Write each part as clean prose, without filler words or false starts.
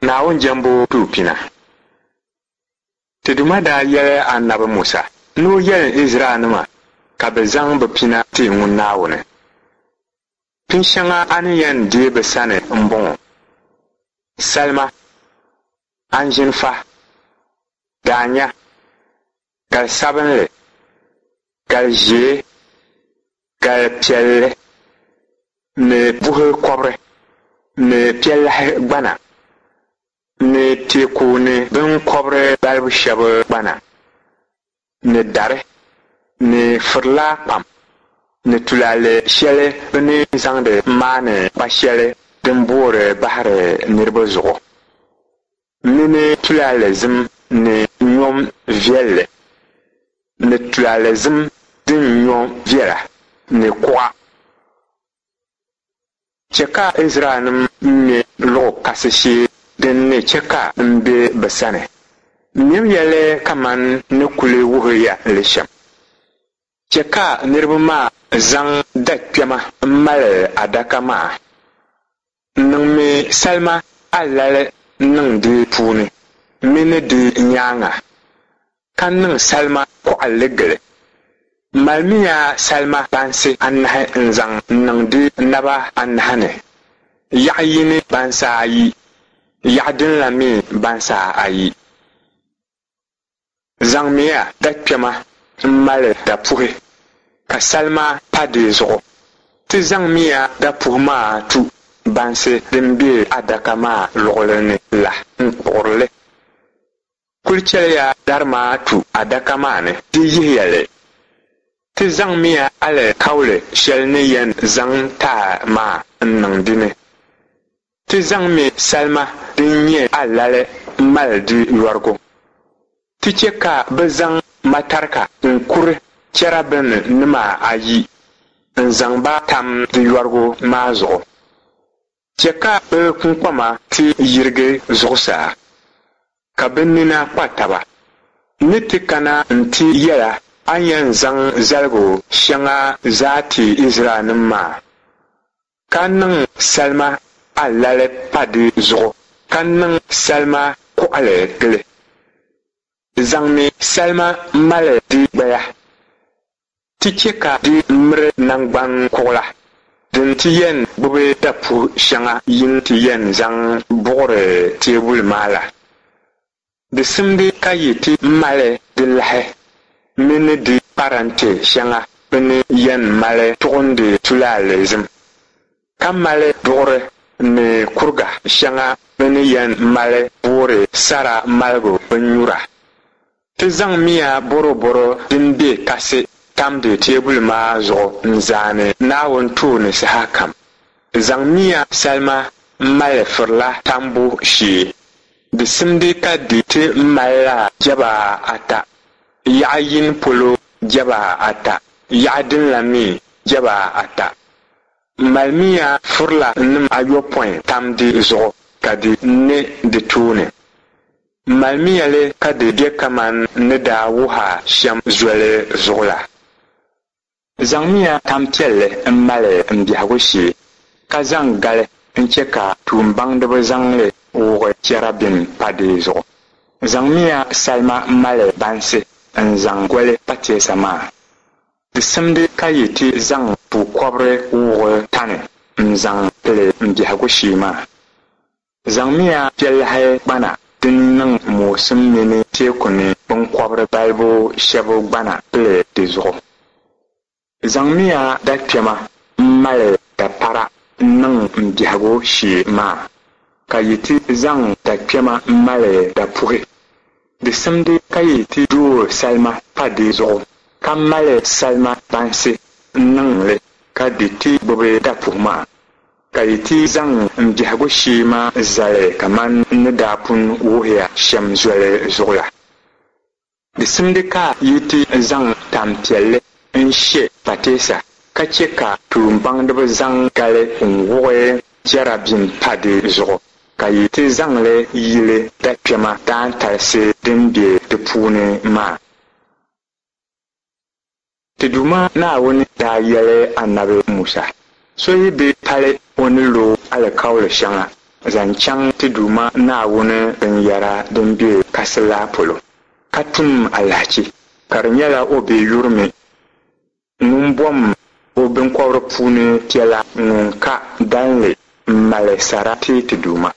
Naawuni jɛmbu duu pina. Ti Duuma daa yɛli Anabi Musa ni o yɛli Izraɛlnima ka bɛ zaŋ bɛ pina ti ŋun Naawuni. Pin shɛŋa a ni yɛn deei bɛ sani m-bɔŋɔ, Salima, anzinfa, daanya, gali sabinli, gali ʒee, gali piɛlli ni buhi kɔbiri ni piɛlahi gbana ni teeku ni biŋkɔbiri balibu shɛb gbana ni dari ni firila kpam ni tulaale shɛli bɛ ni zaŋdi maani kpa shɛli din boori bahiri niriba zuɣu mini tulaale zim ni nyom viɛlli ni tulaale zim din nyo viɛla ni kuɣa. Chɛ ka Izraɛlnim ŋme luɣ kasi shee din ni chɛ ka m be bɛ sani. Mɛmiya li kaman n ni kul wuhi ya li shɛm. Chɛ ka niriba maa zaŋ da kpɛma m-mali adaka maa. Niŋmi salima alali niŋ di puuni mini di nyaaŋa, ka niŋ salima kɔɣilli gili. Malimiya salima bansi anahi n-zaŋ niŋ di naba anahi ni, yaɣ yini bansi ayi, yaɣ din la mi bansi ayi. Zaŋmiya dakpɛma m-mali dapuhi, ka salima pa di zuɣu. Ti zaŋmiya dapuhi maa tu bansi din be adaka maa luɣili ni la n-kpuɣiri li. Kul chɛliya dari maa tu adaka maa ni, di yihiya li. Ti zaŋmiya alikauli shɛli ni yɛn zaŋ taai maa n-niŋ di ni. Ti zaŋmi salima din nyɛ alali m-mali di yɔrigu. Ti chɛ ka bɛ zaŋ matarika n-kuri chɛrabinima ayi n-zaŋ ba tam di yɔrigu maa zuɣu. Chɛ ka bɛ kuŋkpama ti yirigi zuɣusaa, ka bɛ nina kpa taba. N ni ti kana nti yɛl a a ni yɛn zaŋ zaligu shɛŋa zaa ti Izraɛlnim maa. Ka niŋ salima alali pa di zuɣu, ka niŋ salima kuɣili gili. Zaŋmi salima mali di gbaya, ti chɛ ka di miri naŋgban kuɣila din ti yɛn gbibi dapuhi shɛŋa yi ni ti yɛn zaŋ buɣiri teebuli maa la. Di simdi ka yi ti mali di lahi mini di parante shɛŋa bɛ ni yɛn mali tuɣindi tulaale zim, ka mali duɣuri ni kuriga shɛŋa bɛ ni yɛn mali boori sara maligu binnyura. Ti zaŋmiya bɔrɔbɔro din be kasi tamdi teebuli maa zuɣu n-zaani Naawuni tooni sahakam. Zaŋmiya salima m-mali firila tambu shee. Di simdi ka di ti malila jɛba ata, yaɣ yini polo jɛba ata, yaɣ din la mi jɛba ata. Malimiya firilanim ayopɔin tam di zuɣu ka di ne di tooni. Malimiya li ka di be kaman n ni daa wuh a shɛm zoli zuɣu la. Zaŋmiya tampiɛlli m-mali m biɛhigu shee, ka zaŋ gali n-chɛ ka tuumbaŋdiba zaŋ li wuɣi chɛrabim pa di zuɣu. Zaŋmiya salima mali bansi n-zaŋ goli pateesa maa. Di simdi ka yi ti zaŋ pukɔbiri wuɣi tani n-zaŋ pili m biɛhigu shee maa. Zaŋmiya piɛlahi gbana din niŋ moosim mini teeku ni biŋkɔbiri balibu shɛb gbana pili di zuɣu. Zaŋmiya dakpɛma m-mali dapara n-niŋ m biɛhigu shee maa, ka yi ti zaŋ dakpɛma m-mali dapuhi. Di simdi ka yi ti dooi salima pa di zuɣu, ka mali salima bansi n-niŋ li ka di ti gbibi dapuhi maa. Ka yi ti zaŋ m biɛhigu shee maa zali kaman n ni daa pun wuhi ya shɛm zoli zuɣu la. Di simdi ka yi ti zaŋ tampiɛlli n-she pateesa, ka chɛ ka tuumbaŋdiba zaŋ gali n-wuɣi chɛrabim pa di zuɣu, ka yi ti zaŋ li yili dakpɛma daantalisi din be di puuni maa. Ti Duuma Naawuni daa yɛli Anabi Musa, So yi bi pali o ni lo alikauli shɛŋa zaŋ chaŋ ti Duuma Naawuni binyɛra din be kasi la polo, ka tum alahichi, ka di nyɛla o bi yurimi ŋun bom o biŋkɔbiri puuni piɛla ŋun ka dalinli m-mali sara ti ti Duuma.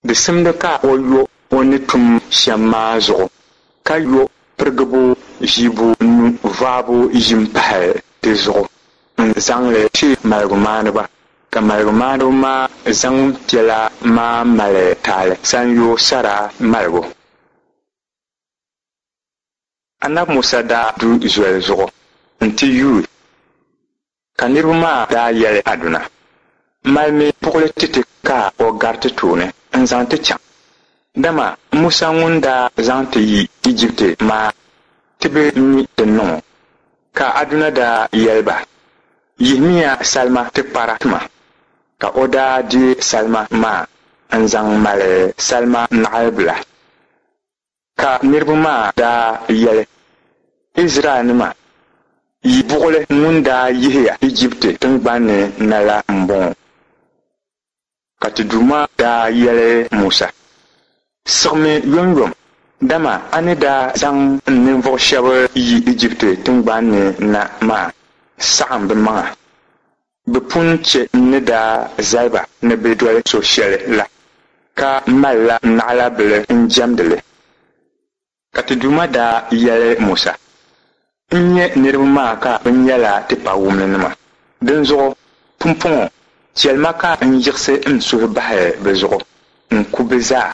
Di simdi ka o yo o ni tum shɛm maa zuɣu, ka yo pirigibu ʒiibunu vaabu yim pahi di zuɣu n-zaŋ li ti maligumaaniba, ka maligumaaniba maa zaŋ piɛla maa mali taali sanyoo sara maligu. Anabi Musa daa du zoli zuɣu nti yuui, ka niriba maa daa yɛli Aduna, Malimi buɣili ti ti ka o gari ti tooni n-zaŋ ti chaŋ, dama Musa ŋun daa zaŋ ti yi Ijipti maa ti bi mi din niŋ o. Ka Aduna daa yɛli ba, Yihimiya salima tikpara ti ma. Ka o daa deei salima maa n-zaŋ mali salima naɣilibila. Ka niriba maa daa yɛli, Izraɛlnima, yi buɣili ŋun daa yihi ya Ijipti tiŋgbani ni na la m-bɔŋɔ. Ka ti Duuma daa yɛli Musa, Siɣimi yomyom, dama a ni daa zaŋ n ninvuɣ shɛb yi Ijipti tiŋgbani ni na maa saɣim bɛ maŋa. Bɛ pun chɛ n ni daa zali ba ni bɛ doli so shɛli la, ka malila naɣilabili n-jɛmdi li. Ka ti Duuma daa yɛli Musa, N nya niriba maa ka bɛ nyɛla tipawumlinima. Dinzuɣu pumpɔŋɔ chɛli ma ka n yiɣisi n suhu bahi bɛ zuɣu n-ku bɛ zaa.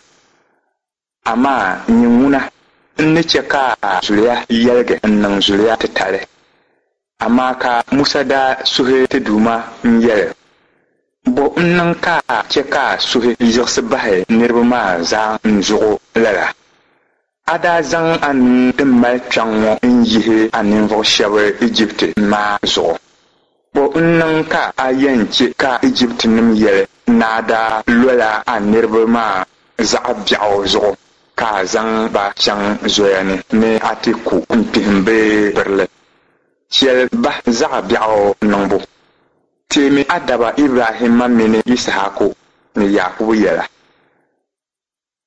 Amaa nyin ŋuna, n ni chɛ ka a zuliya yɛligi n-niŋ zuliya titali. Amaa ka Musa daa suhi ti Duuma n-yɛli, Bɔ n-niŋ ka a chɛ ka a suhi yiɣisi bahi niriba maa zaa n zuɣu lala? A daa zaŋ a nuu din mali kpiɔŋ ŋɔ n-yihi a ninvuɣ shɛb Ijipti maa zuɣu. Bɔ n-niŋ ka a yɛn chɛ ka Ijiptinim yɛli ni a daa lola a niriba maa zaɣ biɛɣu zuɣu ka a zaŋ ba chaŋ zoya ni ni a ti ku n-kpihim bɛ birili? Chɛli ba zaɣ biɛɣu niŋbu. Teemi a daba Ibrahimma mini Yisahaku ni Yaakubu yɛla.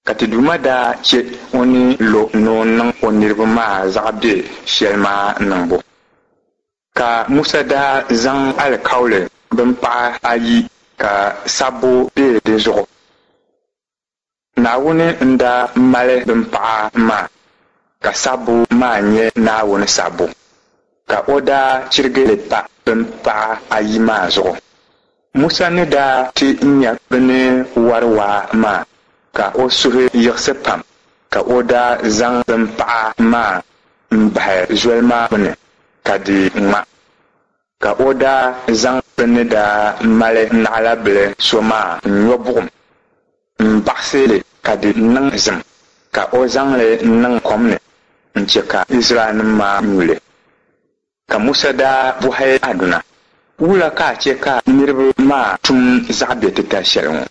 Ka ti Duuma daa chɛ o ni lo ni o niŋ o niriba maa zaɣ biɛ shɛli maa niŋbu. Ka Musa daa zaŋ alikauli bimpaɣa ayi ka sabbu be di zuɣu. Naawuni n-daa mali bimpaɣa maa, ka sabbu maa nyɛ Naawuni sabbu, ka o daa chirigi li pa bimpaɣa ayi maa zuɣu. Musa ni daa ti nya bɛ ni wari waa maa, ka o suhu yiɣisi pam, ka o daa zaŋ bimpaɣa maa m-bahi zoli maa gbini ka di ŋma. Ka o daa zaŋ bɛ ni daa mali naɣilabili so maa n-nyo buɣim m-baɣisi li ka di niŋ zim, ka o zaŋ li niŋ kom ni n-chɛ ka Izraɛlnim maa nyu li. Ka Musa daa bɔhi Aduna, Wula ka a chɛ ka niriba maa tum zaɣ biɛtitali shɛli ŋɔ?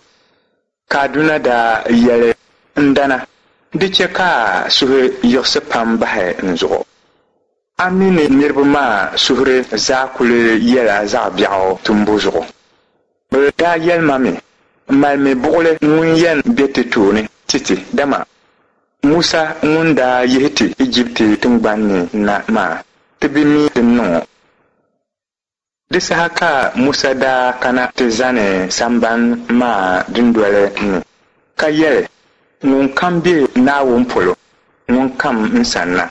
Ka Aduna daa yɛli, N dana, di chɛ ka a suhu yiɣisi pam bahi n zuɣu. A mi ni niriba maa suhuri zaa kuli yɛla zaɣ biɛɣu tumbu zuɣu. Bɛ daa yɛli ma mi, Malimi buɣili ŋun yɛn be ti tooni ti ti, dama Musa ŋun daa yihi ti Ijipti tiŋgbani ni na maa, ti bi mi din niŋ o. Di saha ka Musa daa kana ti zani sambani maa dundoli ni, ka yɛli, Ŋunkam be Naawuni polo, ŋun kam n sanna.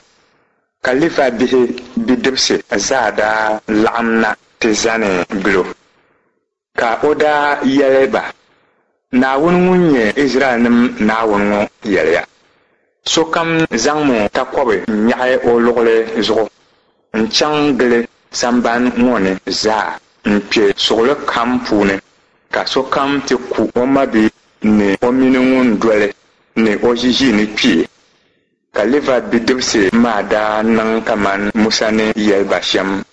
Ka Livai bihi bidibisi zaa daa laɣim na ti zani gil o. Ka o daa yɛli ba, Naawuni ŋun nyɛ Izraɛlnim Naawuni ŋɔ yɛliya, Sokam zaŋmi takɔbi n-nyaɣi o luɣili zuɣu n-chaŋ gili sambani ŋɔ ni zaa n-kpe suɣili kam puuni, ka sokam ti ku o mabia ni o mini ŋun doli ni o ʒiʒiinikpee. Ka Livai bidibisi maa daa niŋ kaman Musa ni yɛli ba shɛm.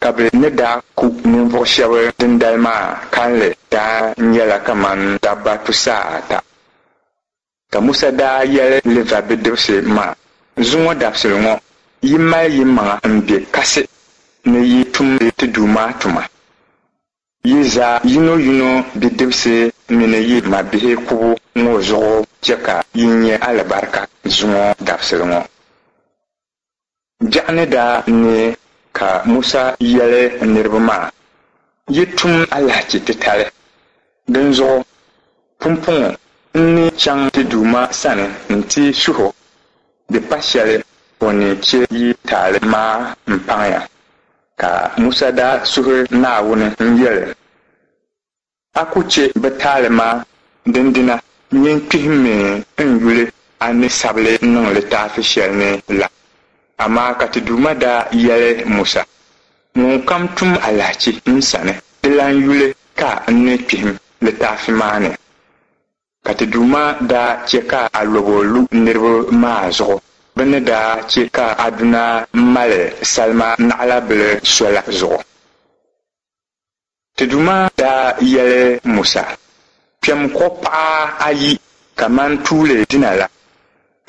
Ka bɛ ni daa ku ninvuɣ shɛb dindali maa kalinli daa nyɛla kaman dabba tusaata. Ka Musa daa yɛli Livai bidibisi maa, Zuŋɔ dabisili ŋɔ, yi mali yimaŋa m-be kasi ni yi tumdi ti Duuma tuma. Yi zaa yinoyino bidibisi mini yi mabihi kubu ŋɔ zuɣu chɛ ka yi nya alibarika zuŋɔ dabisili ŋɔ. Biɛɣu ni daa neei ka Musa yɛli niriba maa, Yi tum alahichi titali, dinzuɣu pumpɔŋɔ n ni chaŋ ti Duuma sani nti suh o, di pa shɛli o ni chɛ yi taali maa m-paŋ ya. Ka Musa daa suhi Naawuni n-yɛli, A ku chɛ bɛ taali maa, dindina nyin kpihimmi n yuli a ni sabi li niŋ litaafi shɛli ni la. Amaa ka ti Duuma daa yɛli Musa, Ŋunkam tum alahichi n sani, dilan yuli ka n ni kpihim litaafi maa ni. Ka ti Duuma daa chɛ ka alɔbo lu niriba maa zuɣu, bɛ ni daa chɛ ka Aduna mali salima naɣilabili so la zuɣu. Ti Duuma daa yɛli Musa, Kpɛm kuɣ paɣa ayi kaman tuuli dina la,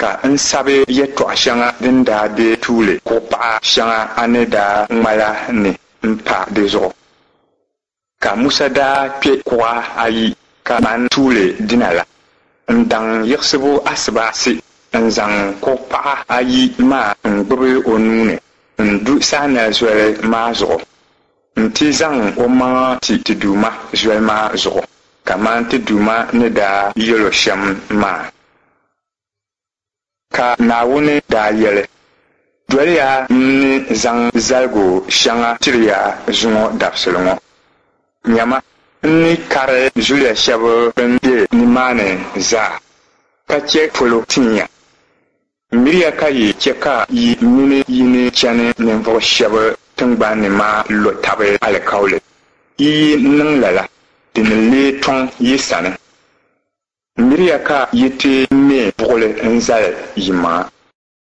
ka n sabi yɛtɔɣ shɛŋa din daa be tuuli kuɣ paɣa shɛŋa a ni daa ŋma la ni m-pa di zuɣu. Ka Musa daa kpe kuɣa ayi kaman tuuli dina la n-daŋ yiɣisibu asibaasi n-zaŋ kuɣ paɣa ayi maa n-gbibi o nuu ni n-du Sainai Zoli maa zuɣu nti zaŋ omaŋa ti ti Duuma zoli maa zuɣu kaman ti Duuma ni daa yɛl o shɛm maa. Ka Naawuni daa yɛli, Doliya n ni zaŋ zaligu shɛŋa tiri ya zuŋɔ dabisili ŋɔ. Nyama, n ni kari zuliya shɛb bɛn be nimaani zaa, ka chɛ polo tin ya. Miriya ka yi chɛ ka yi mini yi ni chani ninvuɣ shɛb tiŋgbani ni maa lo tab alikauli. Yi yi niŋ lala, di ni leei tɔŋ yi sani. Miriya ka yi ti me buɣili n-zali yimaŋa.